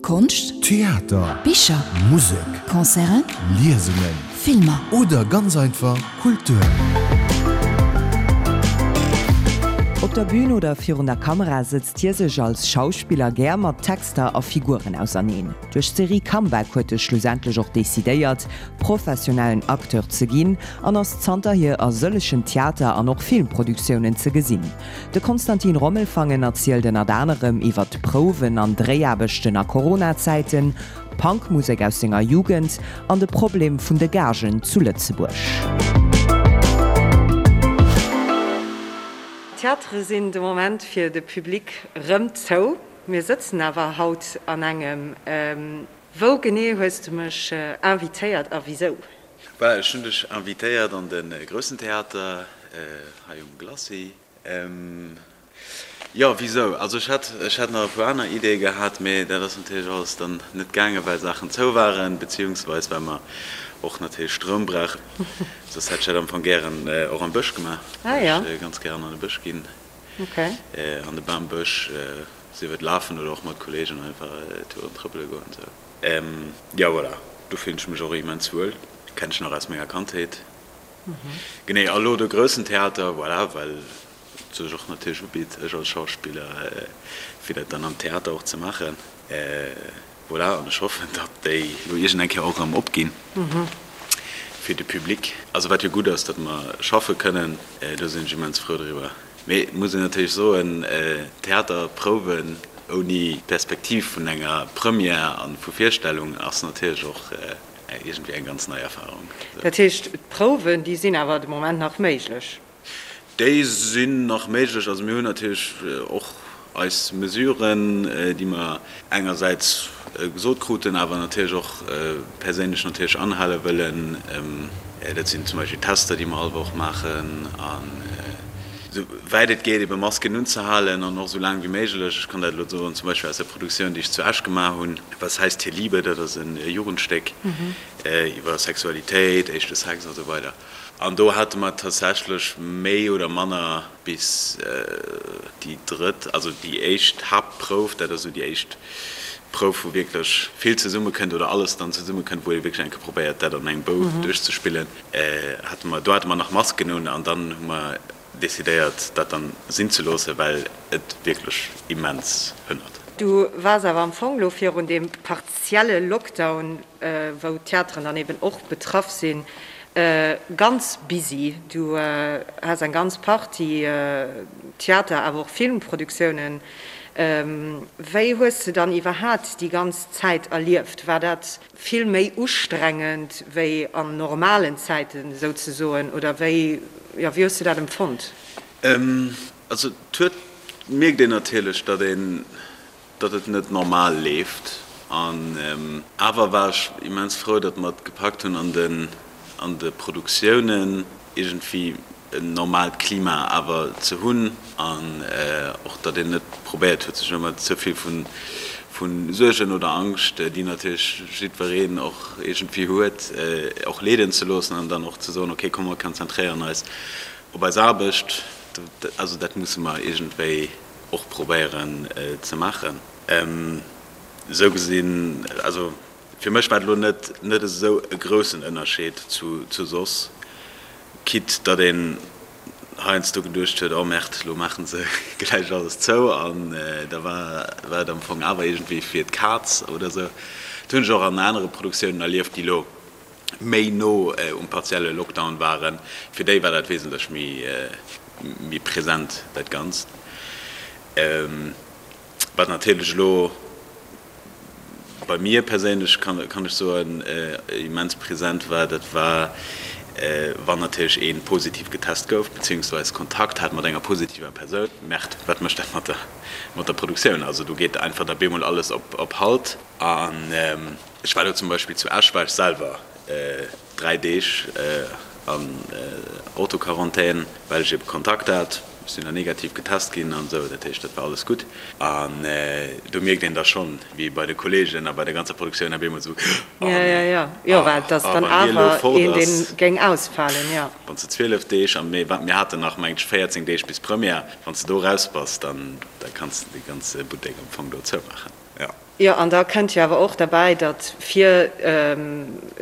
Konscht, Theater, Bicher, Musek, Concerten, Liesungen Filmer. Oder ganz einfach Kultur. Op der Bün oder virun der Kamera sëtzt hie sech als Schauspiller gär mat Texter a Figuren auserneen. Duerch d'Serie Comeback huet e schlussendlech och decidéiert, professionellen Acteur ze ginn an ass zanterhier a sëllegen Theater an och Filmproduktiounen ze gesinn. De Konstantin Rommelfangen erzielt ënnert anerem iwwer d'Prouwen an Dréiaarbechten a Corona-Zäiten, d'Punkmusek aus senger Jugend an de Problem vun de Gagen zu Lëtzebuerg. D'Theatere sinn de Moment fir de Public rëm zou. Mir sëtzen awer haut an engem. Wou genee hues de mech invitéiert a wisou? Voilà, ech hunn dech invitéiert an de Groussen Theater hei um Glacis. Jo, wisou? Also ech hätt, ech hätt nach e puer aner Ideeë gehat, mee dat ass natierlech alles dann net gaangen, well Saachen zou waren, beziehungsweis well mer och natierlech Stroum brauchen. Soss hätt ech dat am Fong gären och am Bësch gemaach, well ech ganz gären an de Bësch ginn, an de Bambësch, sief et lafen oder och mat Kollegen einfach Touren trëppele goen esou. Jo voilà, do fillen ech mech och immens wuel, kennen ech nach aus menger Kandheet. Genee, a lo de groussen Theater, voilà, well et sech och natierlech ubitt, ech als Schauspiller, fir dat dann am Theater och ze maachen. Voilà, an ech hoffen, datt déi lo iergend eng Kéier och erëm opginn fir de Public. Also wat jo gutt ass, datt mer schaffe kënnen, do sinn ech immens frou driwwer. Mee et muss een natierlech soen, Theaterprouwen ouni d'Perspektiv vun enger Première a vu Virstellung ass natierlech och iergendwéi eng ganz nei Erfarung. Dat heescht, d'Prouwen, déi sinn awer de Moment nach méiglech? Déi sinn nach méiglech. Also mir hunn natierlech och eis Mesuren, déi mer engersäits gesot kruten, awer natierlech och perséinlech natierlech anhale wëllen. Dat sinn zum Beispill Tester, déi mer all Woch maachen an esou wäit et geet ebe Masken unzehalen an och esou laang wéi méiglech. Ech kann dat elo soen, zum Beispill aus der Produktioun, déi ech zu Esch gemaach hunn, Was heißt hier Liebe, dat ass e Jugendstéck iwwer Sexualitéit, éischte Sex a sou weider. An do hate mer tatsächlech méi oder manner bis déi drëtt, also déi éischt Haaptprouf, dat ass esou déi éischt Prouf, wou wierklech vill zesummekënnt oder alles dann zesummekënnt, wou ee wierklech eng Kéier probéiert, dat an engem Bou duerchzespillen, hate mer, do hate mer nach Masken un an dann hu mer decidéiert, dat dann sinn ze loossen, well et wierklech immens hënnert. Du waars awer am Fong lo virun deem partielle Lockdown, wou d'Theateren dann eben och betraff sinn, ganz busy. Du has eng ganz Partie Theater-, awer och Filmproduktiounen. Wéi hues de dann iwwerhaat déi ganz Zäit erlieft? War dat vill méi ustrengend wéi an normalen Zäiten souzesoen, oder wéi, jo, wéi hues de dat empfonnt? Also et huet, mierkt een natierlech, datt een, datt et net normal leeft. An awer war ech immens frou, datt mer et gepackt hunn an den, an de Produktiounen iergendwéi en normaalt Klima awer ze hunn an och datt een net probéiert huet sech ëmmer ze vill vu Suergen oder Angscht, déi natierlech jiddwereen och iergendwéi huet, och leeden ze loossen an dann och ze soen, okay komm mer konzentréieren eis op eis Aarbecht. Also dat musse mer iergendwéi och probéieren ze maachen. Esou gesinn, also Fir mech war et elo net net esou e groussen Ënnerscheed zu zu soss, quitte datt een heiansdo geduecht huet, oh Merde, elo maachen se gläich alles zou an da war war et am Fong awer iergendwéi fir d'Kaz oder esou. Dat hunn ech och an anere Produktiounen erlieft, déi elo méi no um partielle Lockdown waren. Fir déi war dat wesentlech méi méi present, dat Ganzt. Wat natierlech elo bei mir perséinlech, kann ech soen, immens present war, dat war, wann natierlech ee positiv getest gouf, beziehungsweis Kontakt hat mat enger positiver Persoun. Merde, wat mécht dat mat der, mat der Produktioun? Also do geet einfach da bemol alles op, op Halt. An ech war do zum Beispill zu Esch, war ech selwer 3 Deeg an Autoquarantän, well ech ebe Kontakt hat. Ech sinn dann negativ getest ginn an esou, dat heescht, dat war alles gutt. An do mierkt een da schonn, wéi bei de Kolleegen a bei der ganzer Produktioun op eemol esou, Oh nee, oh, wann hie elo fort ass, wann s de 12 Deeg, a mir haten nach, mengt ech, 14 Deeg bis Première, wann s de do raus bass, dann da kanns de de ganze Buttek am Fong do zoumaachen. Jo. Jo, an da kënnt jo awer och derbäi, datt fir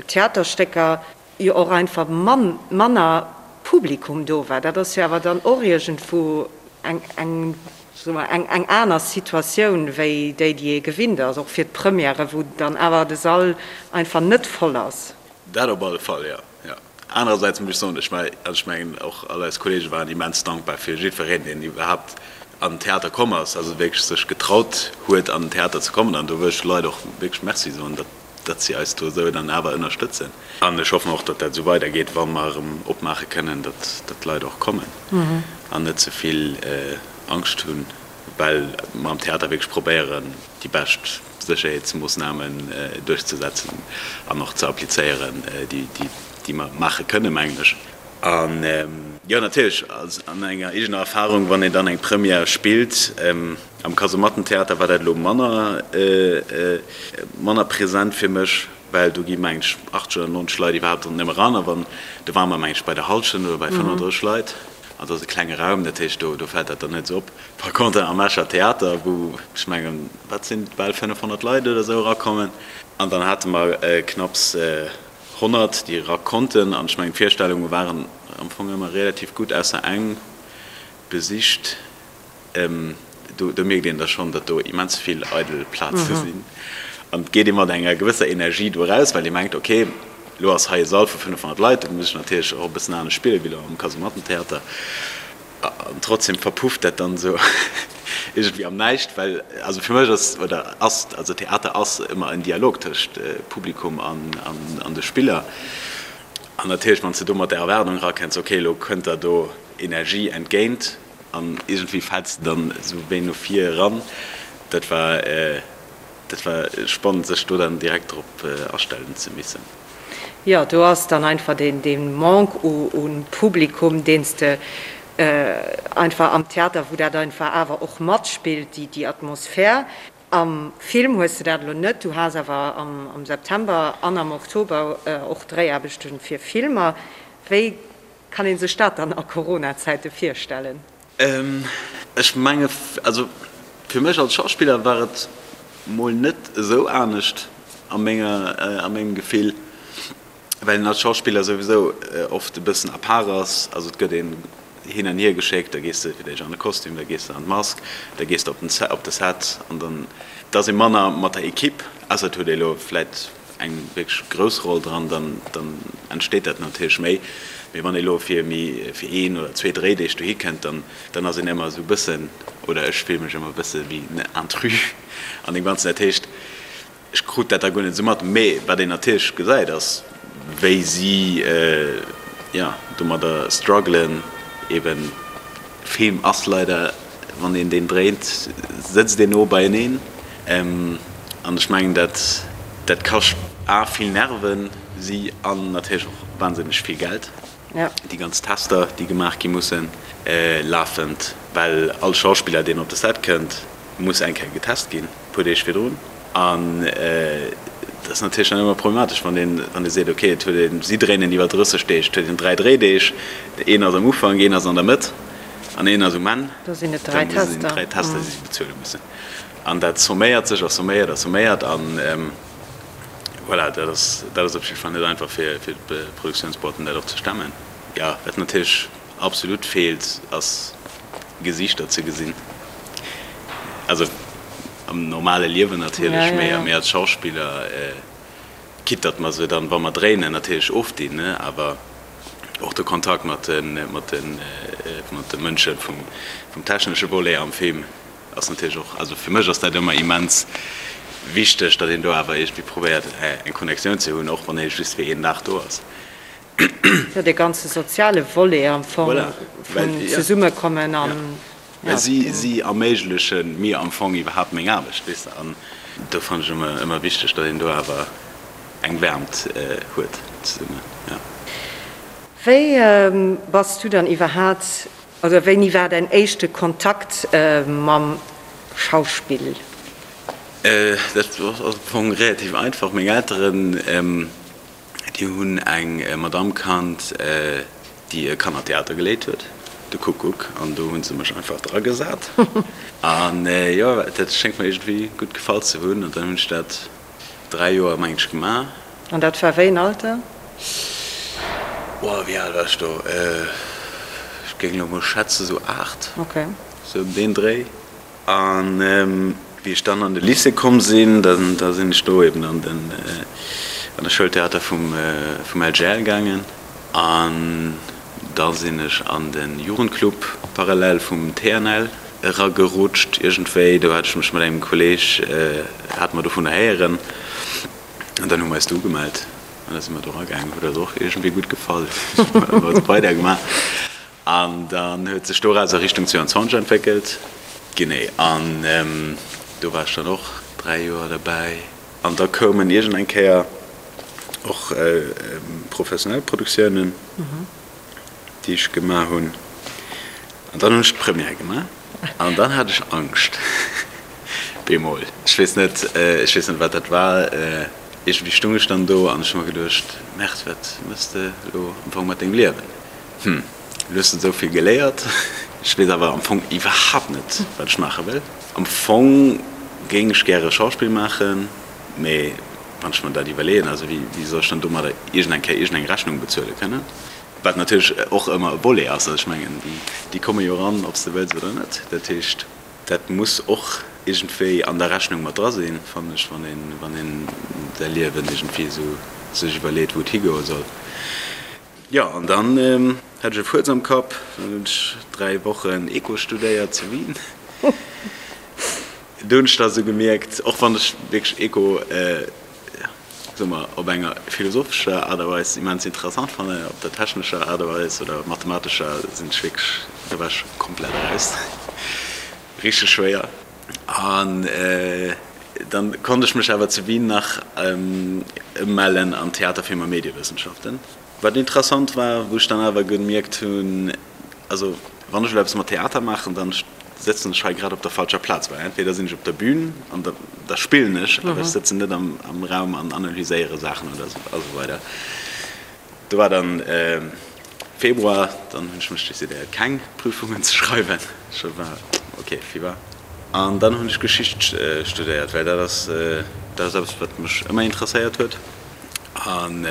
Theaterstécker jo och einfach manner Publikum do war. Dat ass jo awer dann och iergendwou eng, eng, soe mer, eng, eng aner Situatioun wéi déi, déi ee gewinnt ass, och fir d'Premièrë, wou dann awer de Sall einfach net voll ass. Dat op alle Fall, jo. Jo. Anerersäits muss ech soen, ech war, also ech mengen och all eis Kollege waren immens dankbar fir jiddwereen, deen iwwerhaapt an den Theater komm ass, also wierklech sech getraut huet an den Theater ze kommen. An do wëll ech de Leit och wierklech Merci soen, datt, datt si eis do esou dann awer ënnerstëtzen. An ech hoffen och, datt dat esou weidergeet, wa mer erëm opmaache kënnen, datt, datt d'Leit och kommen an net ze vill Angscht hunn, well mer am Theater wierklech probéieren, déi bescht Sécherheetsmoossnamen duerchzesetzen an och ze applizéieren, déi mer maache kënnen, mengen ech. An jo, natierlech an enger eegener Erfahrung, wann een dann eng Première spillt, am Kasemattentheater war dat elo manner, manner present fir mech, well do gi mengen ech 80 oder 90 Leit iwwerhaapt nëmme eran a wann, do ware mer mengen ech bei der Hallschent oder bei 35 Leit an dat ass e klenge Raum, dat heescht do fält dat dann net esou op. Par contre am Escher Theater, wou ech mengen, wat sinn et, bal 500 Leit oder esou erakommen, an dann hate mer knapps 100, déi era konnten, an ech mengen d'Virstellunge waren am Fong ëmmer relativ gutt, ausser eng besicht. Do mierkt een da schonn, datt do immens vill eidel Plaze sinn an et geet ee mat enger gewësser Energie do eraus, well ee mengt, ok, elo ass hei e Sall vu 500 Leit, do muss ech natierlech och e bëssen anescht spillen, wéi elo am Kasemattentheater. An trotzdem verpufft dat dann esou iergendwéi am Näischt, well also fir mech ass, oder ass, also Theater ass ëmmer en Dialog tëscht Publikum an de Spiller. An natierlech, wann s de do mat där Erwaardung erakënns, ok, elo kënnt der do Energie entgéint an iergendwéi fäls de dann esou wéi no vir eran, dat war, dat war spannend, sech do dann direkt drop astellen ze missen. Jo, do ass dann einfach dee Manque u Publikum, deen s de einfach am Theater, wou dat einfach awer och matspillt, déi Atmosphär. Am Film hues de dat elo net, du has awer am September an am Oktober och Dréiaarbechte fir Filmer. Wéi kann ee sech dat dann a Corona-Zäite virstellen? Ech menge, also fir mech als Schauspiller war et mol net esou anescht a menger, a mengem Gefill, well een als Schauspiller souwisou oft e bëssen à part ass. Also et gëtt een hin an hier geschéckt, da gees de fir d'éischt an de Kostüm, da gees de an d'Mask, da gees de op den, op de Set an dann, et ass ee manner mat der Equipe, ausser et huet ee elo vläit eng wierklech grouss Roll dran, dann dann entsteet dat natierlech méi. Mee wann ee lo fir méi fir een oder zwee Dréideeg dohi kënnt, dann dann ass een ëmmer esou e bëssen, oder ech fille mech ëmmer e bësse wéi en Intrus an deem Ganzen. Dat heescht, ech krut dat da guer net esou mat. Mee wat een natierlech gesäit, ass wéi si, jo, domadder struggelen, eben Film ass leider, wann een deen dréint, sëtzt een no beieneen. An ech mengen, dat dat kascht a vill Nerven, si an natierlech och wahnsinneg vill Geld, déi ganz Tester, déi gemaach gi mussen lafend, well all Schauspiller, deen op de Set kënnt, muss eng Kéier getest ginn, e puer Deeg virdrun. An et ass natierlech dann ëmmer problematesch, wann een, wann ee seet, ok, et huet een, si dréinen iwwer 30 Deeg, et huet een 3 Dréideeg, een ass am Ufank, een ass an der Mëtt an een ass um Enn. Da sinn et 3 Dann sinn et Tester. 3 Tester, déi si bezuele mussen. An dat somméiert sech a somméiert a somméiert an voilà, dat ass, dat ass op jidde Fall net einfach fir, fir d'Produktiounsboîten dat och ze stemmen. Jo, wat natierlech absolut feelt, ass Gesiichter ze gesinn. Also am normale Liewen natierlech, mee mee als Schauspiller, quitte datt mer se dann, wa mer dréinen, natierlech ofdinn, ne, awer och de Kontakt mat de mat de mat de Mënsche vum vum technesche Volet am Film ass natierlech och, also fir mech ass dat ëmmer immens wichteg, datt een do awer iergendwéi probéiert eng Connectioun ze hunn, och wann ee just fir een Dag do ass. Jo, dee ganze soziale Volet am Fong vun Zesummekommen an, ja. Well si, si erméigleche mir am Fong iwwerhaapt meng Aarbecht, weess de. An do fannen ech ëmmer, ëmmer wichteg, datt een do awer eng Wäermt huet zesummen, jo. Wéi bass du dann iwwerhaat, oder wéini war däin éischte Kontakt mam Schauspill? Dat ass am Fong relativ einfach. Meng Elteren, Déi hunn eng Madamm kannt, déi e Kannertheater geleet huet. De Kuckuck an do hunn se mech einfach dragesat an jo, dat schéngt mer iergendwéi gutt gefall ze hunn an dann hunn ech dat 3 Joer mengen ech gemaach. An dat war wéi en Alter? Oh, wéi al war ech do? Ech géing elo mol schätzen esou 8, esou ëm deen Dréi. An wéi ech dann an de Lycée komm sinn, da sinn ech do eben an den an de Schoultheater vum vum LGL gaangen. An da sinn ech an de Jugendclub parallel vum TNL eragerutscht iergendwéi. Do hat ech mech mat engem Kolleeg, hate mer dovunner héieren an dann hu mer eis do ugemellt an da si mer do eragaangen. Huet eis och iergendwéi gutt gefall, hu mer weidergemaach. An dann huet sech doraus a Richtung 22 entwéckelt. Genee, an do war ech dann och 3 Joer derbäi. An da koumen iergend eng Kéier och professionell Produktiounen, déi ech gemaach hunn. An dann hunn ech d'Première gemaach an dann hat ech Angscht bemol. Ech weess net, ech weess net, wat dat war. Iergendwéi stung ech dann do an ech hu mer geduecht, Merde, wat méchs de elo am Fong mat dengem Liewen? Hm, elo hues de esou vill geléiert. Ech weess awer am Fong iwwerhaapt net, wat ech maache wëll. Am Fong géing ech gäre Schauspill maachen, mee wann ech mer dat iwwerleeën, also wéi soll ech dann domadder iergendeng Kéier iergendeng Rechnung bezuele kënnen? Wat natierlech och ëmmer e Volet ass. Also ech mengen, déi komme jo eran, ob s de wëlls oder net. Dat heescht, dat muss och iergendwéi an der Rechnung mat dra sinn, fannen ech, wann een, wann een säi Liewen iergendwéi esou sech iwwerleet, wou et higoe soll. Jo, an dann hat ech e Fuerz am Kapp. Dann hunn ech 3 Wochen Eco studéiert zu Wien. Do hunn ech da sou gemierkt, och wann ech wierklech Eco, soe mer, op enger philosophescher Aart a Weis immens interessant fannen, op der technescher Aart a Weis oder mathematescher sinn ech wierklech, do war ech komplett eraus. Richteg schwéier. An dann konnt ech mech awer zu Wien nach ëmmellen an Theater, Film a Mediewëssenschaften. Wat interessant war, wou ech dann awer gemierkt hunn, also wann ech elo eppes mat Theater maachen, dann sëtzen ech hei grad op der falscher Plaz, well entweder sinn ech op der Bühn an da da spillen ech, awer ech sëtzen net am Raum an analyséiere Saachen oder a sou weider. Do war dann Februar, dann hunn ech mech decidéiert keng Prüfungen ze schreiwen. Ech war ok, Fieber. An dann hunn ech Geschicht studéiert, well dat ass dat ass eppes wat mech ëmmer interesséiert huet. An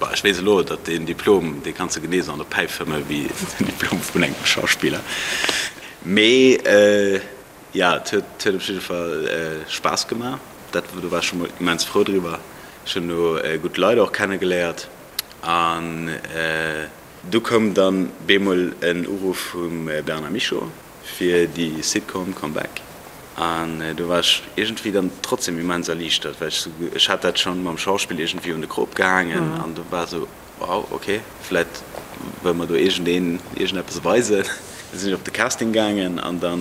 bon, ech weess elo, datt deen Diplom, dee kanns de genee esou an der Päif fëmme wéi den Diplom vun engem Schauspiller. Mee jo, et huet huet op jidde Fall Spaass gemaach. Dat do war ech scho mol immens frou driwwer. Ech hunn do gutt Leit och kennegeléiert. An du koum dann bemol en Uruff vum Bernard Michaux fir déi Sitcom Come Back. An do war ech iergendwéi dann trotzdem immens erliichtert, well ech sou, ech hat dat schonn mam Schauspill iergendwéi un de Krop gehaangen an do war sou, Wow, ok, vläit wëll mer do iergendeen iergendeppes weisen. Da sinn ech op de Casting gaangen an da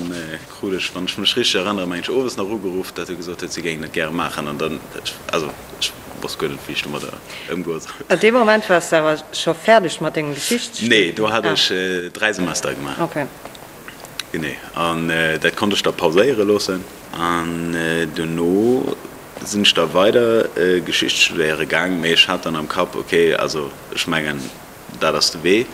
krut ech, wann ech mech richteg erënneren, meng ech owes nach ugeruff, datt e gesot huet, si géingen dat gäre maachen. An dann, also ech wosst guer net, wéi ech domadder ëmgoe soll. An deem Moment waars de awer scho fäerdeg mat dengem Geschichtsstudium? Nee, do hat ech 3 Semester gemaach. Ok. Genee, an dat konnt ech da pauséiere loossen. An dono sinn ech da weider Geschicht studéiere gaang, mee ech hat dann am Kapp, ok, also ech mengen dat ass de Wee.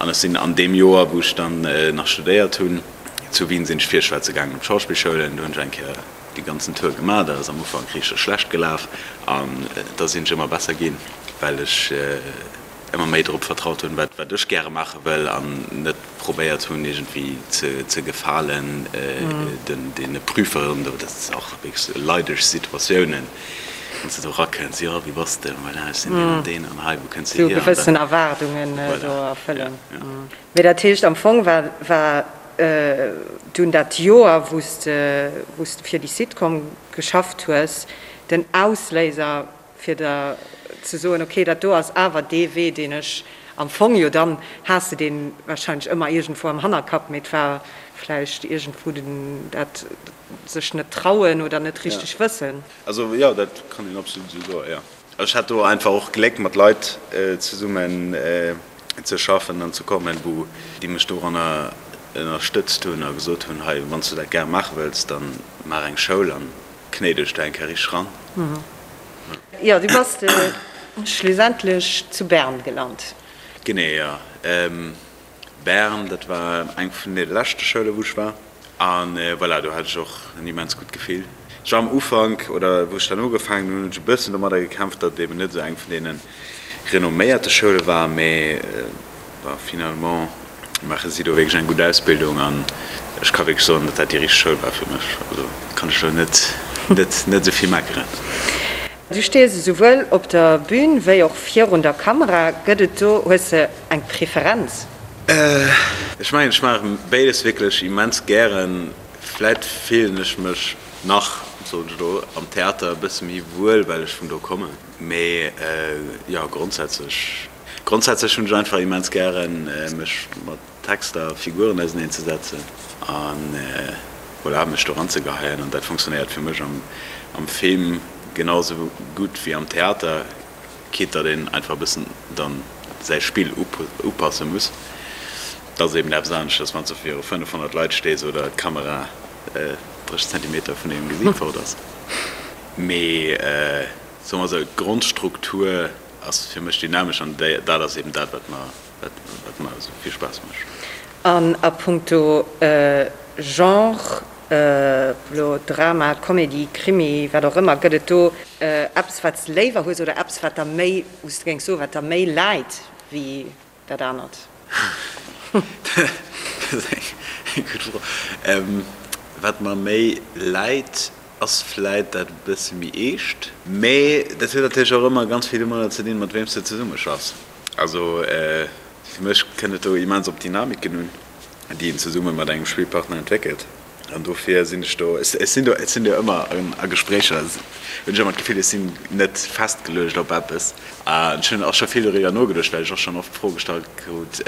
An ech sinn an deem Joer, wou ech dann nach studéiert hunn zu Wien, sinn ech virschwätze gaangen op d'Schauspillschoulen. Do hunn ech eng Kéier dee ganzen Tour gemaach. Dat ass am Ufank richteg schlecht gelaf an da sinn ech ëmmer besser ginn, well ech ëmmer méi drop vertraut hunn, wat wat ech gäre maache wëll an net probéiert hunn iergendwéi ze ze gefalen den deene Prüferen do. Dat ass och wierklech leideg Situatiounen, wann s de do erakënns, jo wie bass de, voilà ech sinn deen an deen an hei wou kënns de Sou hier an gewëssen dann Erwaardungen do voilà, ja, erfëllen. ja. Mee dat heescht am Fong war war dunn dat Joer wou s de wou s de fir déi Sitcom geschafft hues den Ausléiser fir der ze soen, ok, dat do ass awer dee Wee, deen ech am Fong, jo dann has de dee wahrscheinlech ëmmer iergendwou am Hannerkapp, mee et war vläicht iergendwou den dat sech net trauen oder net richteg wëssen. Also jo, dat kann een absolut esou soen, jo. Ech hat do einfach och Gléck mat Leit zesummen ze schaffen an ze kommen, wou déi mech doranner ënnerstëtzt hunn a gesot hunn, hei, wann s du dat gäre maache wëlls, da maach eng Schoul an knéi dech do eng Kéier richteg ran. Jo, du bass schlussendlech zu Bern gelant. Genee, jo. Bern, dat war eng vun de leschte Schoule wou ech war. A voilà, do hat ech och en immens gutt Gefill. Ech war am Ufank, oder wou ech dann ugefaangen hunn, hunn ech e bëssen domadder gekämpft, datt et eben net esou eng vun deene renomméierte Schoule war, mee bon, finalement maache si do wierklech eng gutt Ausbildung an ech ka wierklech soen, datt dat déi richteg Schoul war fir mech. Also kann ech elo net, net, net esou vill meckeren. Du stees esouwuel op der Bühn wéi och virun der Kamera. Gëtt et do, hues de eng Preferenz? Ech mengen, ech maache béides wierklech immens gären. Vläit fillen ech mech nach, soen ech elo, am Theater e bësse méi wuel, well ech vun do kommen. Mee jo, grondsätzlech, grondsätzlech hunn ech einfach immens gären, mech mat Texter a Figuren auseneen ze setzen an voilà, mech do ranzegeheien. An dat funktionéiert fir mech am Film genau sou gutt wéi am Theater, quitte datt een einfach e bëssen dann säi Spill upasse muss. Dat ass eben eppes aneschters, wann s du viru 500 Leit stees oder d'Kamera 30 Zentimeter vun dengem Gesiit fort ass. Mee soe mer esou, d'Grondstruktur ass fir mech dynamesch an dat ass eben dat, wat mer Wat mer esou vill Spaass mécht. An a punkto Genre, elo Drama, Comedy, Krimi, wat och ëmmer, gëtt et do eppes wat s de léiwer hues oder eppes wat der méi, wou s de géings soen, wat der méi läit wéi dat anert? Dat ass eng gutt Fro. Wat mer méi läit, ass vläit dat e bësse méi eescht. Mee dat huet natierlech och ëmmer ganz vill domadder ze dinn, mat weem s de zesummeschaffs. Also fir mech kënnt et do immens op d'Dynamiken un, déi een zesumme mat engem Spillpartner entwéckelt. An dofir sinn ech do, ech sinn do, ech sinn do ëmmer a Gespréicher, hunn ech ëmmer d'Gefill, ech sinn net festgeluecht op eppes. An ech hunn och scho vill doriwwer nogeduecht, well ech och schonn oft d'Fro gestallt krut,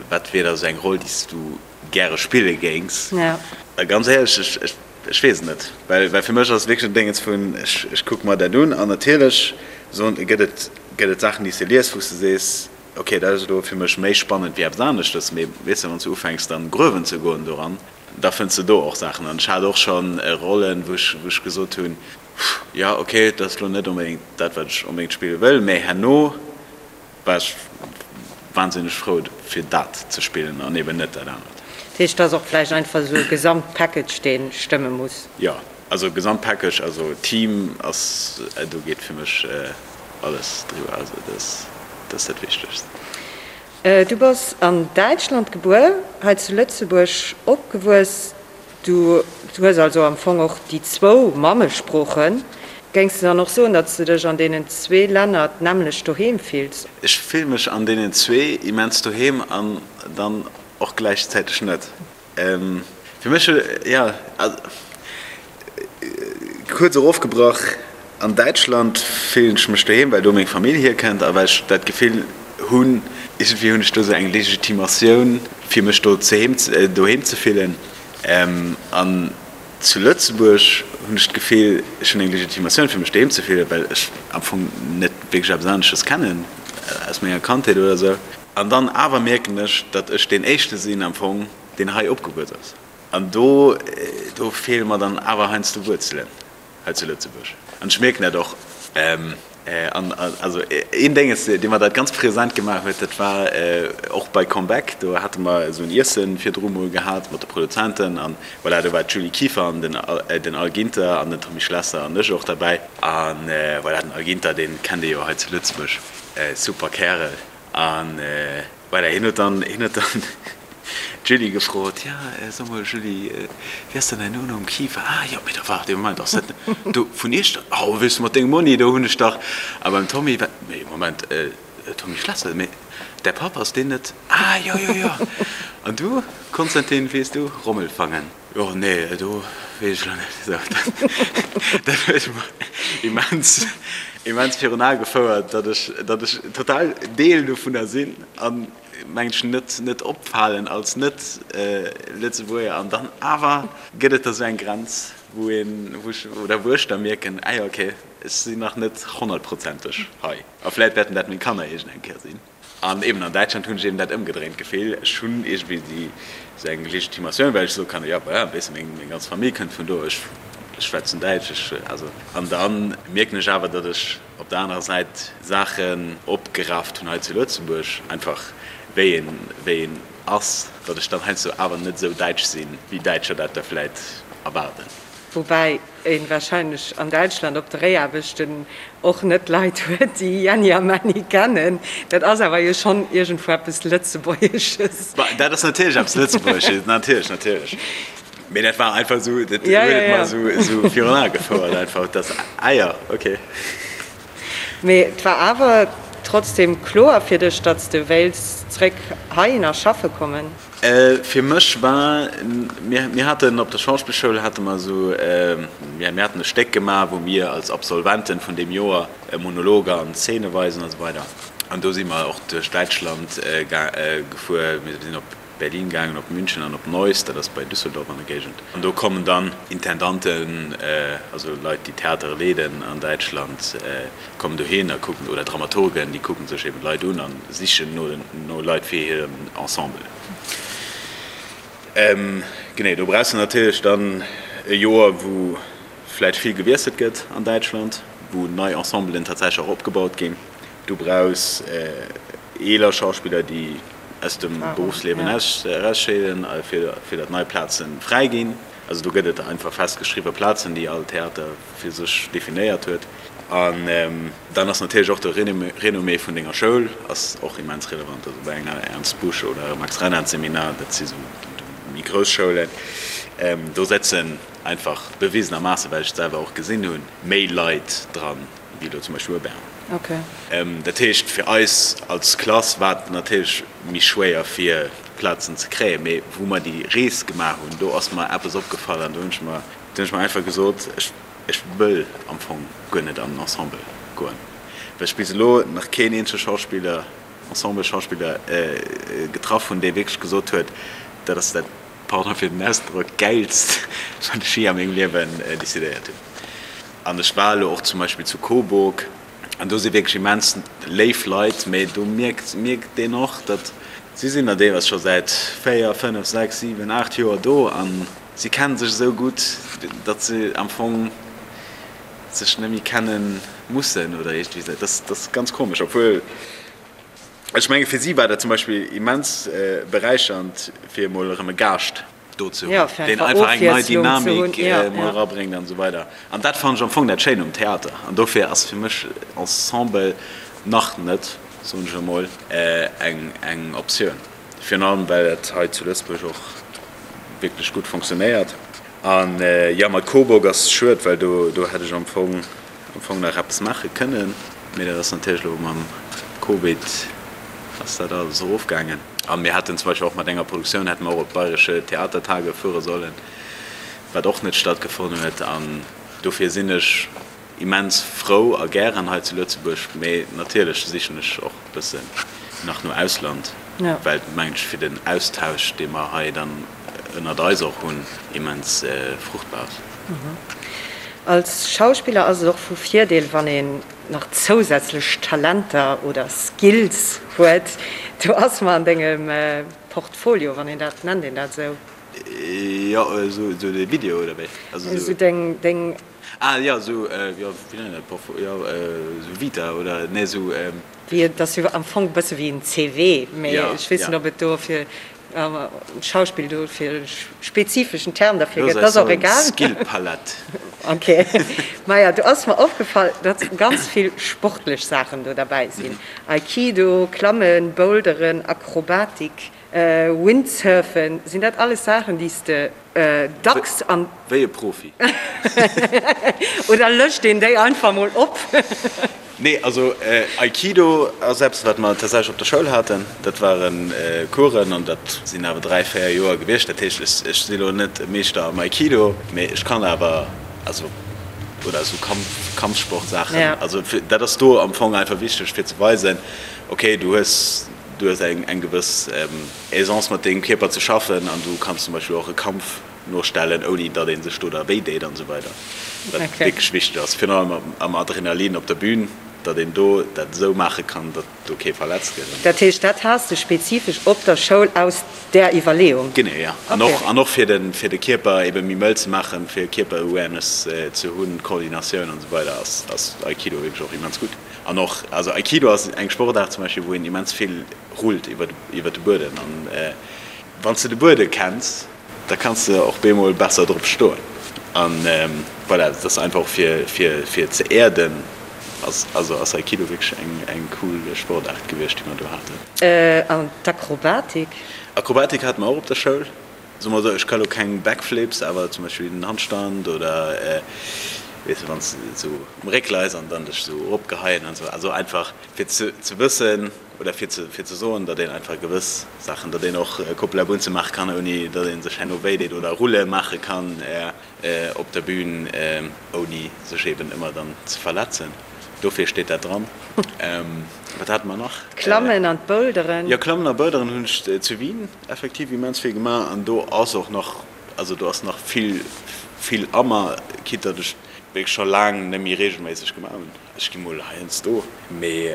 Wat wier da sou eng Roll, déi s du gäre spille géings? A ganz éierlech, ech, ech weess et net. Well, well fir mech ass et wierklech en Déngens vun, ech, ech kucke mer dat un an natierlech soen, gëtt et, gëtt et Saachen, déi s de lies, wou s de sees, ok, dat ass elo fir mech méi spannend wéi eppes aneschtes. Mee weess de, wann s du ufänks dann gruewen ze goen doran, da fënns de do och Saachen. An ech hat och scho Rollen, wou ech, wou ech gesot hunn, jo, ok, dat ass elo net onbedéngt dat, wat ech onbedéngt spille wëll, mee herno war ech wahnsinneg frou fir dat ze spillen an eben net dat anert. Dat heescht, et ass och vläicht einfach esou e Gesamtpackage, dee stëmme muss? Jo, also Gesamtpackage, also Team ass, do geet fir mech alles driwwer, also dat ass dat Wichtegst. Du bass an Däitschland gebuer, hei zu Lëtzebuerg opgewuess. Du hues also am Fong och déi zwou Mammesproochen. Géings de dann och soen, datt s de dech an deenen zwee Länner d'nämmlecht doheem fills? Ech fille mech an deenen zwee immens doheem an dann och gläichzäiteg net. Fir mech, jo, kuerz erofgebrach, an Däitschland fillen ech mech doheem, well do meng Famill hierkënnt a well ech dat Gefill hunn, iergendwéi hunn ech do sou eng Legitimatioun, fir mech do doheem ze fillen. An zu Lëtzebuerg hunn ech d'Gefill, ech hunn eng Legitimatioun, fir mech doheem ze fillen, well ech am Fong net wierklech eppes anesches kennen aus menger Kandheet oder sou. An dann awer mierken ech, datt ech deen Éischte sinn am Fong, deen hei opgewuess ass. An do, do feele mer dann awer heiansdo Wuerzelen hei zu Lëtzebuerg. An ech mierken dat och. An also een Dénges, dee mer dat ganz present gemaach huet, dat war och bei Comeback. Do hate mer esou en Iesse virdru mol gehat mat de Produzenten. An voilà, do war d'Julie Kieffer an den, den Al Ginter an den Tommy Schlesser an ech och derbäi. An voilà, den Al Ginter, dee kennt ee jo hei zu Lëtzebuerg, super Kärel. An voilà, hien huet dann, hien huet dann d'Julie gefrot, Ja, so mol Julie, wéi ass denn däin Nonumm? Kieffer? Ah jo, mee da waart ee Moment, ass dat do vun Iechternach? Oh, weess de, mat dengem Monni, do hunn ech dach. A beim Tommy war, mee Moment, Tommy Schlesser, mee däi Papp, ass deen net? Ah jo, jo, jo. An du, Konstantin, weess du? Rommelfangen. Jo, nee, do weess ech elo net. Sou, dat huet mer immens, immens virun Ae gefouert, datt ech, datt ech total Deel dovunner sinn an, mengen ech, net, net opfalen als Net-Lëtzebuerger. An dann awer gëtt et da sou eng Grenz, wou een, wou ech, oder wou ech da mierken, ah jo, okay, ech sinn nach net honnertprozenteg hei. A vläit wäerten dat meng Kanner iergend eng Kéier sinn. An eben an Däitschland hunn ech eben dat ëmgedréint Gefill, ech hunn iergendwéi déi esou eng Legitimatioun, well ech soe kann, jo voilà, weess de, meng meng ganz Famill kënnt vun do, ech ech schwätzen Däitsch, ech also. An da mierken ech awer, datt ech op der anerer Säit Saachen opgerafft hunn hei zu Lëtzebuerg, einfach. wéi een, wéi een ass, datt ech dann heiansdo awer net esou däitsch sinn, wéi Däitscher dat da vläit erwaarden. Woubäi een wahrscheinlech an Däitschland op Dréiaarbechten och net Leit huet, déi Jänni a Männi kennen. Dat ass awer jo schonn iergendwou eppes Lëtzebuergesches. Dat ass natierlech eppes Lëtzebuergesches, natierlech, natierlech. Mee dat war einfach esou, dat huet et mer esou virun Ae gefouert einfach, dass, ah jo, okay. Mee et war awer trotzdem kloer fir dech, datt s de wéilts zréck heihinner schaffe kommen? Fir mech war, mir, mir haten op der Schauspillschoul hate mer esou, mir, mir haten e Stéck gemaach, wou mir als Absolventen vun deem Joer Monologer an Zeene weisen a sou weider. An do si mer och duerch Däitschland gefuer, mir sinn op Berlin gaangen, op München an op Neuss, dat ass bei Düsseldorf an der Géigend. An do kommen dann Intendanten, also Leit, déi Theatere leeden an Däitschland, kommen dohin a kucken, oder Dramaturgen, déi kucken sech eben d'Leit un a sichen no no Leit fir hiren Ensemble. Genee, do brauchs de natierlech dann e Joer, wou vläicht vill gewiesselt gëtt an Däitschland, wou nei Ensemblen tatsächlech och opgebaut ginn. Du brauchs eeler Schauspiller, déi aus dem Beruffsliewen erausscheeden, fir datt nei Plaze fräi ginn. Also do gëtt et einfach festgeschriwwe Plazen, déi all Theater fir sech definéiert huet. An dann ass natierlech och de Renommée vun denger Schoul ass och immens relevant. Also bei enger Ernst Busch oder Max Reinhardt Seminar, dat si sou méi grouss Schoulen, do sëtzen einfach bewisenermaasse, well ech et selwer och gesinn hunn, méi Leit dran, wéi elo zum Beispill bei Bern. Dat heescht, fir eis als Klass war et natierlech méi schwéier fir Plazen ze kréien. Mee wou mer déi Rees gemaach hunn, do ass mer eppes opgefall an do hunn ech mer, do hunn ech mer einfach gesot, ech, ech wëll am Fong guer net an den Ensemble goen, well ech bis elo nach keen eenzege Schauspiller, Ensemble-Schauspiller getraff hunn, dee wierklech gesot huet, dat ass dat, pardon fir den Ausdrock, Gäilst, wat ech jee a mengem Liewen decidéiert hunn. An ech war elo och zum Beispill zu Coburg an do si wierklech immens léif Leit, mee do mierkt mierkt een och, datt si sinn der deelweis scho säit 4, 5, 6, 7, 8 Joer do a si kenne sech esou gutt, datt se am Fong sech net méi kenne mussen oder iergendwéi esou. Dat ass ganz komesch, obwuel ech menge fir si war dat zum Beispill immens beräichernd, fir emol erëm e Gaascht do ze hunn, deen einfach eng nei Dynamik emol erabréngt an esou weider. An dat fannen ech am Fong dat Schéin um Theater. An dofir ass fir mech Ensemble nach net, soen ech emol, eng Optioun. Virun allem well et hei zu Lëtzebuerg och wierklech gutt fonctionnéiert. An jo, mat Coburg ass schued, well do hätt ech am Fong am Fong nach eppes maache kënnen, mee dat ass natierlech elo mam Covid ass dat alles erofgaangen. A mir hätten zum Beispill och mat enger Produktioun hätte mer och op d'Bayerische Theatertage fuere sollen, wat och net stattgefonnt huet. An dofir sinn ech immens frou a gären hei zu Lëtzebuerg, mee natierlech sichen ech och e bëssen nach no Ausland, well et mengen ech fir den Austausch, dee mer hei dann ënnert eis och hunn, immens fruchtbar ass. Als Schauspiller ass et och vu Virdeel, wann een nach zousätzlech Talenter oder Skills huet. Do ass mer an dengem Portfolio, wann een dat, nennt een dat esou? Jo, esou de Video oder wéi? Esou deng, deng. Ah jo, esou, jo, wéi nennt een dat, Portfolio, jo, esou Vita oder, nee, esou. Wéi, et ass jo am Fong e bësse wéi en CV, mee ech weess net, ob et dofir am Schauspill do fir e spezifeschen Term derfir gëtt, dat ass och egal. Skillpalett. Ok. Maja, do ass mer opgefall, datt ganz vill sportlech Saachen do derbäi sinn, Aikido, Klammen, Boulderen, Akrobatik, Windsurfen. Sinn dat alles Saachen, déi s de dacks an. Wéi e Profi. Oder lëscht een déi einfach mol op? Nee, also Aikido ass eppes, wat mer tatsächlech op der Schoul haten. Dat ware Coursen an dat sinn awer 3, 4 Joer gewiescht. Dat heescht, ech si elo net e Meeschter am Aikido, mee ech kann awer, also oder esou Kampf, Kampfsportsaachen. Also dat ass do am Fong einfach wichteg fir ze weisen, okay, du hues, du hues eng eng gewëss Aisance mat dengem Kierper ze schaffen an du kanns zum Beispill och e Kampf nostellen, ouni datt ee sech do da wéi deet an esou weider, wat wierklech wichteg ass, virun allem am Adrenalin op der Bühn. datt een do dat esou maache kann, datt do kee verletzt gëtt. Dat heescht, dat has de spezifesch op der Schoul aus där Iwwerleeung? Genee, jo. An och, an och fir de, fir de Kierper ebe méi mëll ze maachen, fir Kierper-Awareness ze hunn, Koordinatioun an esou weider ass, ass Aikido wierklech och immens gutt. An och, also Aikido ass eng Sportaart zum Beispill, wou een immens vill rullt iwwer, iwwer de Buedem. An wann s de de Buedem kenns, da kanns de och bemol besser drop stoen. An voilà, dat ass einfach och fir, fir, fir ze äerden, ass, also ass Aikido wierklech eng, eng cool Sportaart gewiescht, déi mer do haten. An d'Akrobatik? Akrobatik hate mer och op der Schoul. Soe mer esou, ech ka lo keng Backflips, awer zum Beispill den Handstand oder weess de, wann s de esou um Réck leis an dann dech esou eropgeheien an esou. Also einfach fir ze, ze wëssen oder fir ze, fir ze soen, datt een einfach gewëss Saachen, datt een och Coppola Bunze maache kann, ouni datt ee sech herno wéi deet oder Rulle maache kann op der Bühn, ouni sech eben ëmmer dann ze verletzen. Dofir steet dat dran. Wat hate mer nach? D'Klammen an d'Boulderen. Jo, Klammen a Boulderen hunn ech zu Wien effektiv immens vill gemaach an do ass och nach, also do ass nach vill, vill a mer, quitte datt ech wierklech scho laang net méi reegelméisseg gemaach hunn. Ech gi mol heiansdo, mee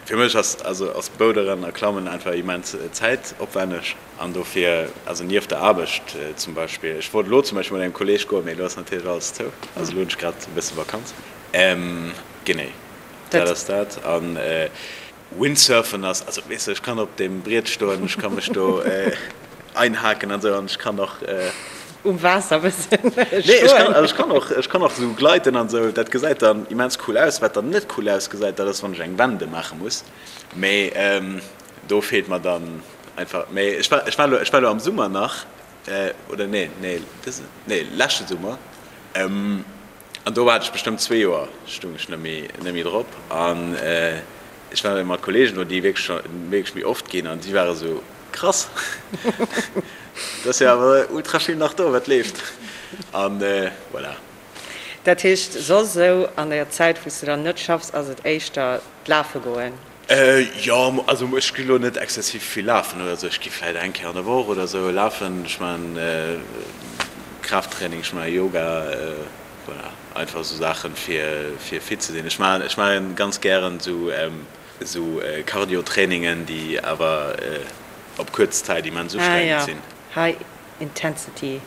fir mech ass, also ass Boulderen a Klammen einfach immens zäitopwänneg an dofir, also nieft der Aarbecht zum Beispill, ech wollt elo zum Beispill mat engem Kolleeg goen, mee elo ass natierlech alles zou, also elo hunn ech grad e bësse Vakanz. Genee, dat ass dat. An Windsurfen ass, also weess de, ech kann op deem Briet stoen, ech ka mech do einhaken an esou an ech kann och. Um Waasser e bëssen stoen. Nee, ech kann, also ech kann och, ech kann och esou gleiten an esou, dat gesäit dann immens cool aus. Wat dann net cool ausgesäit, dat ass wann ech eng Wende maache muss, mee do feelt mer dann einfach, mee ech war, ech war elo, ech war elo am Summer nach, oder nee, nee, dëse, nee, leschte Summer, An do hat ech bestëmmt zwee Joer stung ech net méi net méi drop an ech war mat Kollegen do déi wierklech scho wierklech méi oft ginn an si ware sou, krass, et ass jo awer ultra vill nach do wat leeft an voilà. Dat heescht soss esou an der Zäit wou s de dann net schaffs ass et éischter d'Lafe goen? Jo, also ech gi lo net exzessiv vill lafen oder sou. Ech gi vläit eng Kéier an der Woch oder sou lafen. Ech maachen Kraafttraining, ech maache Yoga, voilà, einfach sou Saachen fir fir fit ze sinn. Ech maachen ech maache ganz gären sou sou Cardio-Trainingen, déi awer op kuerz Zäit immens ustrengend sinn. Ah jo, High Intensity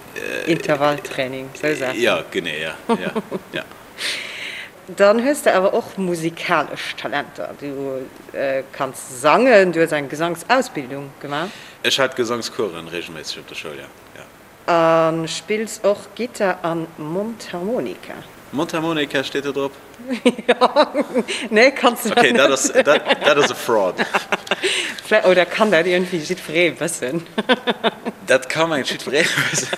Intervalltraining, sou Saachen. Jo, genee, jo, jo, jo. Dann hues de awer och musikalesch Talenter. Du kanns sangen, du hues eng Gesangsausbildung gemaach. Ech hat Gesangscoursen regelméisseg op der Schoul, jo. A spills och Gittar an Mondharmonika. Mondharmonika steet do drop? Jo, nee, kanns de dat net. Ok, dat ass e Fraud. Oder kann dat iergendwéi jiddweree wëssen? Dat ka mengt jiddweree wëssen.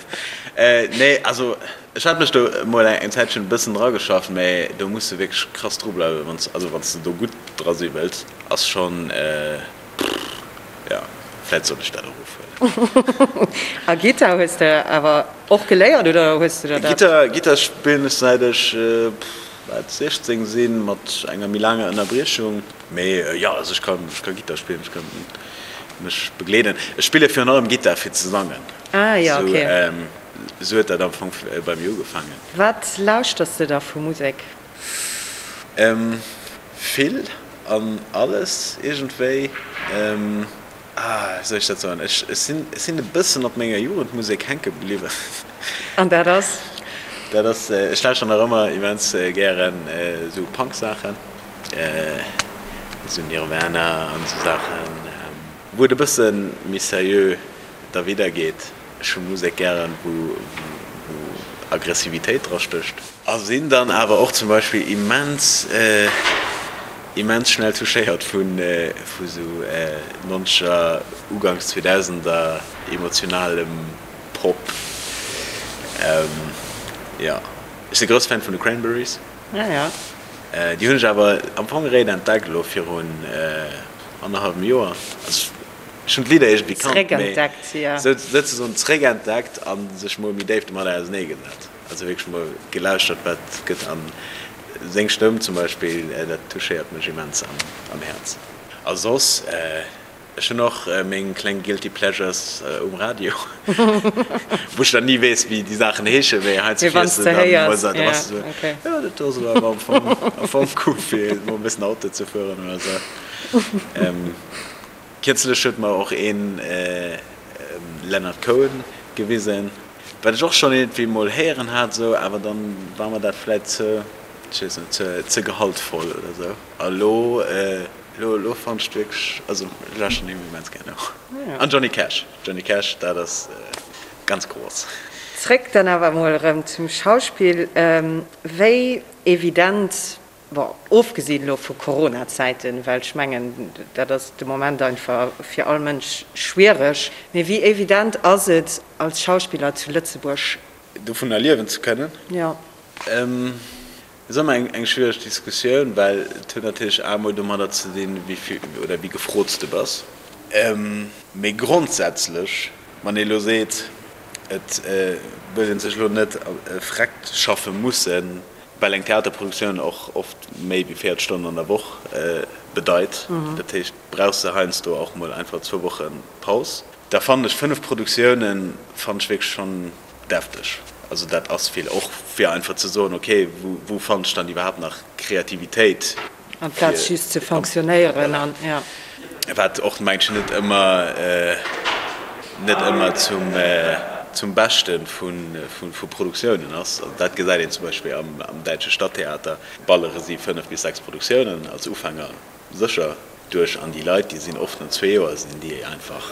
Nee, also Ech hat mech do mol eng Zäitchen e bëssen drageschafft, mä do muss de wierklech krass dru bleiwen, wann s, also wann s de do gutt dra si wëlls, ass schonn, jo, vläit sollt ech dat och ofhuelen. A Gittar hues de awer och geléiert oder hues de der dat? Gittar, Gittar spillen ech säit ech, wat, 16 sinn, mat enger méi laanger Ënnerbriechung. Mee jo, also ech kann, ech ka Gittar spillen, ech ka mech begleeden. Ech spille virun allem Gittar fir ze sangen. Ah jo, ok. Sou huet dat am Fong bei mir ugefaangen. Wat lauschters de da vu Musek? Vill an alles iergendwéi. Ah, wéi soll ech dat soen? Ech sinn, ech sinn e bëssen op menger Jugendmusek hänke bliwwen. An dat ass? Dat ass, ech lauschter nach ëmmer immens gären esou Punk-Saachen, esou Nirvana an esou Saachen, wou et e bësse méi seriö da widder geet. Ech hu Musek gären, wou Aggressivitéit dra stécht. A sinn dann awer och zum Beispill immens, immens schnell touchéiert vu sou nonzeger, uganks zweedausender emotionalem Pop. Jo, ech si grousse Fan vun de Cranberries. Déi hunn ech awer am Fong eréischt entdeckt elo virun annerhallwem Joer. Ech hunn d'Lidder iergendwéi kannt, mee souzesoen zréckentdeckt a sech mol méi déif domadder auseneegesat. Also wierklech mol gelauschtert, wat gëtt. A seng Stëmm zum Beispill, dat touchéiert mech immens am Häerz. A soss. Ech hunn och meng kleng Guilty Pleasures um Radio, wou ech dann ni weess, wéi déi Saachen heeschen, mee heiansdo fiers de dann emol esou, da bass de esou, jo, dat do ass elo awer am Fong, am Fong cool, fir emol e bëssen Auto ze fueren oder esou. Kierzlech huet mer och een Leonard Cohen gewisen, wat ech och schonn iergendwéi emol héieren hat esou, awer dann war mer dat vläit ze, ech weess net, ze, ze gehaltvoll oder esou. A lo, lo, lo fannen ech wierklech, also ech lauschteren him immens gär no. An Johnny Cash, Johnny Cash, dat ass ganz gross. Zréck dann awer emol erëm zum Schauspill. Wéi evident Bon, ofgesinn elo vu Corona-Zäiten, well ech mengen, dat ass de Moment einfach fir all Mënsch schwiereg, mee wéi evident ass et als Schauspiller zu Lëtzebuerg? Dovunner liewen ze kënnen? Jo. Et ass ëmmer eng schwiereg Diskussioun, well et huet natierlech emol domadder ze dinn, wéi vill oder wéi gefrot s de bass. Mee grondsätzlech, wann ee elo seet, et wëllt ee sech elo net vreckt schaffe mussen, Well eng Theaterproduktioun och oft méi wéi 40 Stonnen an der Woch bedeit. Dat heescht, brauchs de heiansdo och mol einfach zwou Woche Paus. Da fannen ech 5 Produktiounen fannen ech wierklech schonn defteg. Also dat ass vill. Och fir einfach ze soen, ok, wou fannen ech dann iwwerhaapt nach Kreativitéit? Amplaz just ze fonctionnéieren an, ja. Wat och mengen ech net ëmmer, net ëmmer zum, zum Beschte vu, vu Produktiounen ass. Also dat gesäit een zum Beispill am, am däitsche Stadttheater, ballere si 5 bis 6 Produktiounen als Ufänger sécher duerch an déi Leit, déi sinn oft no zwee Joer sinn déi einfach,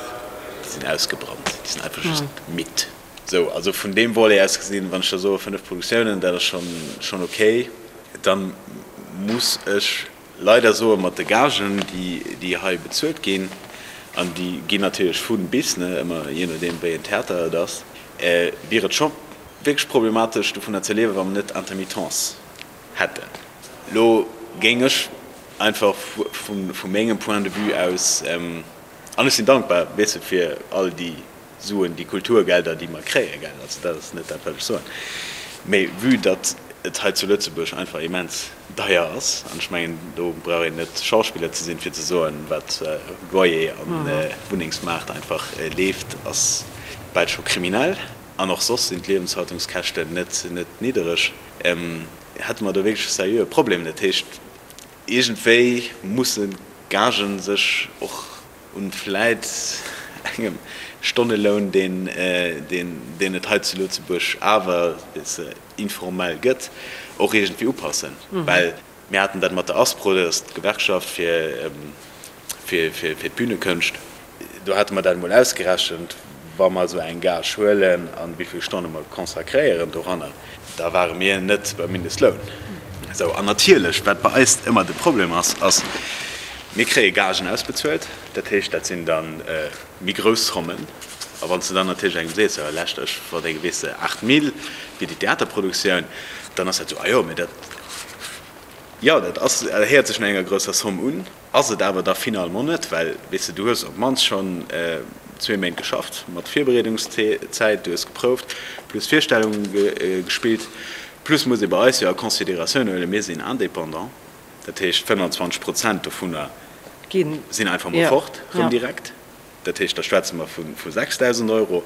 déi sinn ausgebrannt, déi sinn einfach just midd. Sou, also vun deem Volet aus gesinn, wann ech da soe 5 Produktiounen, dat ass schonn, schonn okay. Dann muss ech leider soen, mat de Gagen, déi, déi hei bezuelt ginn, an déi ginn natierlech vu bis, ne, ëmmer jee nodeem wéi en Theater et ass, wier et scho wierklech problematesch dovunner ze liewen, wa mer net Intermittence hätten. Elo géing ech einfach vu, vu mengem Point de vue aus, an ech sinn dankbar, weess de, fir all déi Suen, déi Kulturgelder, déi mer kréien, gell, also dat ass net dat, wat ech soen, mä vue datt et hei zu Lëtzebuerg einfach immens deier ass, an ech mengen, do brauch een net Schauspiller ze sinn, fir ze soen, wat Loyer an Wunnengsmaart einfach leeft, ass bal scho kriminell, an och soss sinn d'Liewenshaltungskäschten net net niddereg, hätte mer do wierklech e seriöe Problem. Dat heescht, iergendwéi mussen d'Gagen sech och Un vläit engem Stonneloun, deen et hei zu Lëtzebuerg awer informell gëtt, och iergendwéi upassen. Well mir haten dat mat der ASPRO, dat ass d'Gewerkschaft fir d'Bünekënscht, do hate mer dat emol ausgerechent, wa mer esou eng Gage huelen a wéi vill Stonne mer consacréieren doranner, da ware mir net beim Mindestloun. Esou, an natierlech, wat bei eis ëmmer de Problem ass, ass, mir kréie Gagen ausbezuelt, dat heescht, dat sinn da méi grouss Zommen. A wann s de dann natierlech engem sees, jo lescht, ech verdénge, weess de, 8 Mille fir déi Theaterproduktioun, dann ass dat esou, ah jo, mä dat, jo, dat ass, dat héiert sech no enger grousser Somme un. Ass et awer da finalement net, well, weess de, du hues op d'mannst schonn zwee Méint geschafft, mat Virbereedungszäit, du hues geprouft, plus Virstellunge gespillt, plus muss ee bei eis jo a Consideratioun huelen, mir sinn Indépendant, dat heescht 25 Prozent dovunner sinn einfach mol fort, rëm direkt. Dat heescht, da schwätze mer vu 6.000 Euro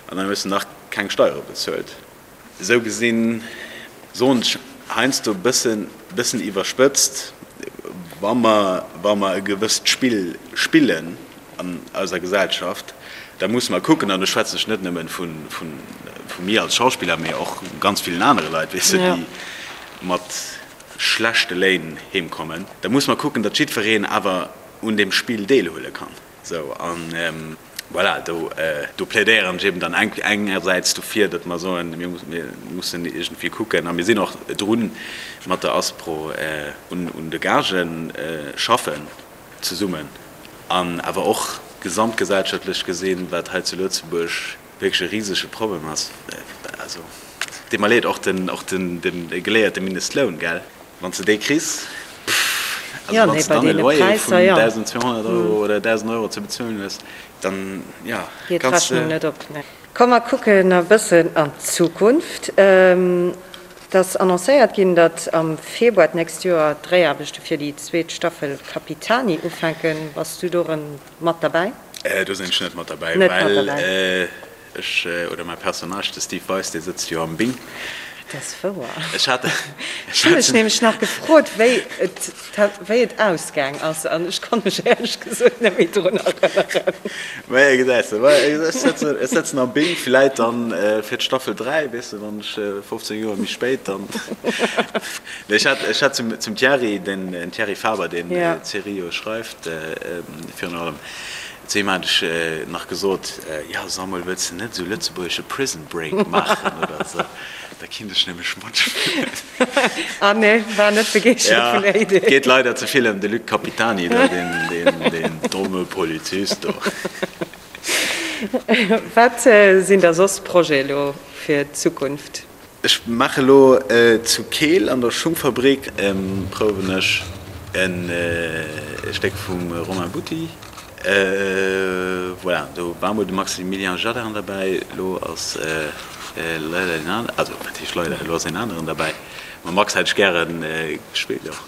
an dann hues de nach keng Steiere bezuelt. Esou gesinn, soen ech heiansdo e bëssen, bëssen iwwerspëtzt, wa mer, wa mer e gewësst Spill spillen an eiser Gesellschaft, da musse mer kucken, an do schwätzen ech net nëmmen vu, vu, vu mir als Schauspiller, mee och ganz villen anere Leit, weess de, déi mat schlechte Léin heemkommen, da musse mer kucken, datt jiddwereen awer un deem Spill deelhuele kann. Sou, an voilà, do, do plädéieren ech eben dann engersäits dofir, datt mer soen, mir mussen iergendwéi kucken, a mir sinn och drun, mat der ASPRO un, un de Gagë schaffen zesummen, an awer och gesamtgesellschaftlech gesinn, wat hei zu Lëtzebuerg wierklech e risege Problem ass, also deet mer leed, och den, och den, den geléierte Mindestloun, gell, wann s de dee kriss, pff, also wann s de dann e Loyer vun 1.200 Euro oder 1.000 Euro ze bezuelen hues, dann, jo, Geet kanns de. D'Rechnung net op, ne. Komm mer kucken e bëssen an d'Zukunft. Et ass annoncéiert ginn, datt am Februar d'nächst Joer d'Dréiaarbechte fir déi zweet Staffel Capitani ufänken. Bass du do erëm mat derbäi? Do sinn ech net mat derbäi, well ech, oder mäi Personnage, de Steve Weis, dee sëtzt jo am Bing. Dat ass wouer. Ech hat, ech hu mech nämlech nach gefrot, wéi et, wéi et ausgaang ass, an ech konnt mech éierlech gesot net méi drun erënneren. Maja, gesäis de, ech sëtzen, ech sëtzen am Bing, villäit dann fir d'Staffel 3, weess de, wann ech 15 Joer méi spéit dann. Nee, ech hat, ech hat zum, zum Thierry, den Thierry Faber, deen d'Serie jo schreift, virun allem, Zu him hat ech nach gesot, Jo, Samuel, wëlls de net esou lëtzebuergesche Prison Break maachen oder esou? Da kinnt ech nämlech matspillen. Ah nee, war net begeeschtert vun der Idee. Et geet leider ze vill ëm de Luc Capitani do, deen domme Polizist do. Wat sinn da soss Projete elo fir d'Zukunft? Ech maache lo zu Keel an der Schungfabrik prouwen ech e Stéck vum Romain Butti. Voilà, do war mol de Maximilien Jadin derbäi, elo ass leider een aneren, also wat heescht leider, elo ass een aneren derbäi. Mam Max hätt ech gäre gespillt och,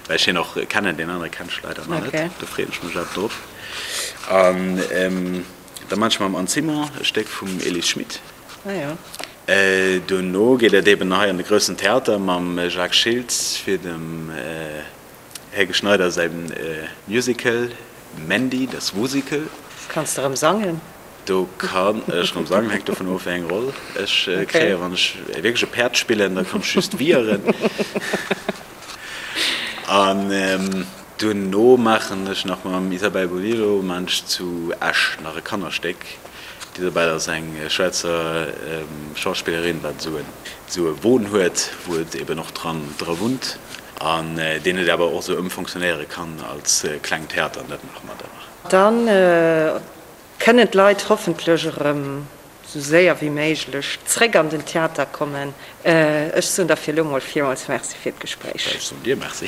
well ech hien och kennen, deen anere kennen ech leider nach net, do freeën ech mech awer drop. An da maache ech mam Anne Simon e Stéck vum Elise Schmit. Ah jo. Duerno geet et eben hei an de groussen Theater mam Jacques Schiltz fir dem Helge Schneider säi Musical Mandy, das Wusical. Kanns de erëm sangen? Do kann ech erëm sangen, hänkt dovun of wéi eng Roll ech kréien. Wann ech wierklech e Päerd spillen, da kann ech just wieren. An duerno maachen ech nach mam Isabelle Bolillo maachen ech zu Esch nach e Kannerstéck. D'Isabelle ass eng Schwäizer Schauspillerin, wat esou en esou e Won huet, wou et eben och dran dra wunnt an deen et awer och esou ëmfonctionnéiere kann als klengt Theater an dat maache mer dann nach. Dann kënnen d'Leit hoffentlech erëm esou séier wéi méiglech zréck an den Theater kommen. Ech soen der fir elo mol villmools Merci fir d'Gespréich. Ech soen dir Merci.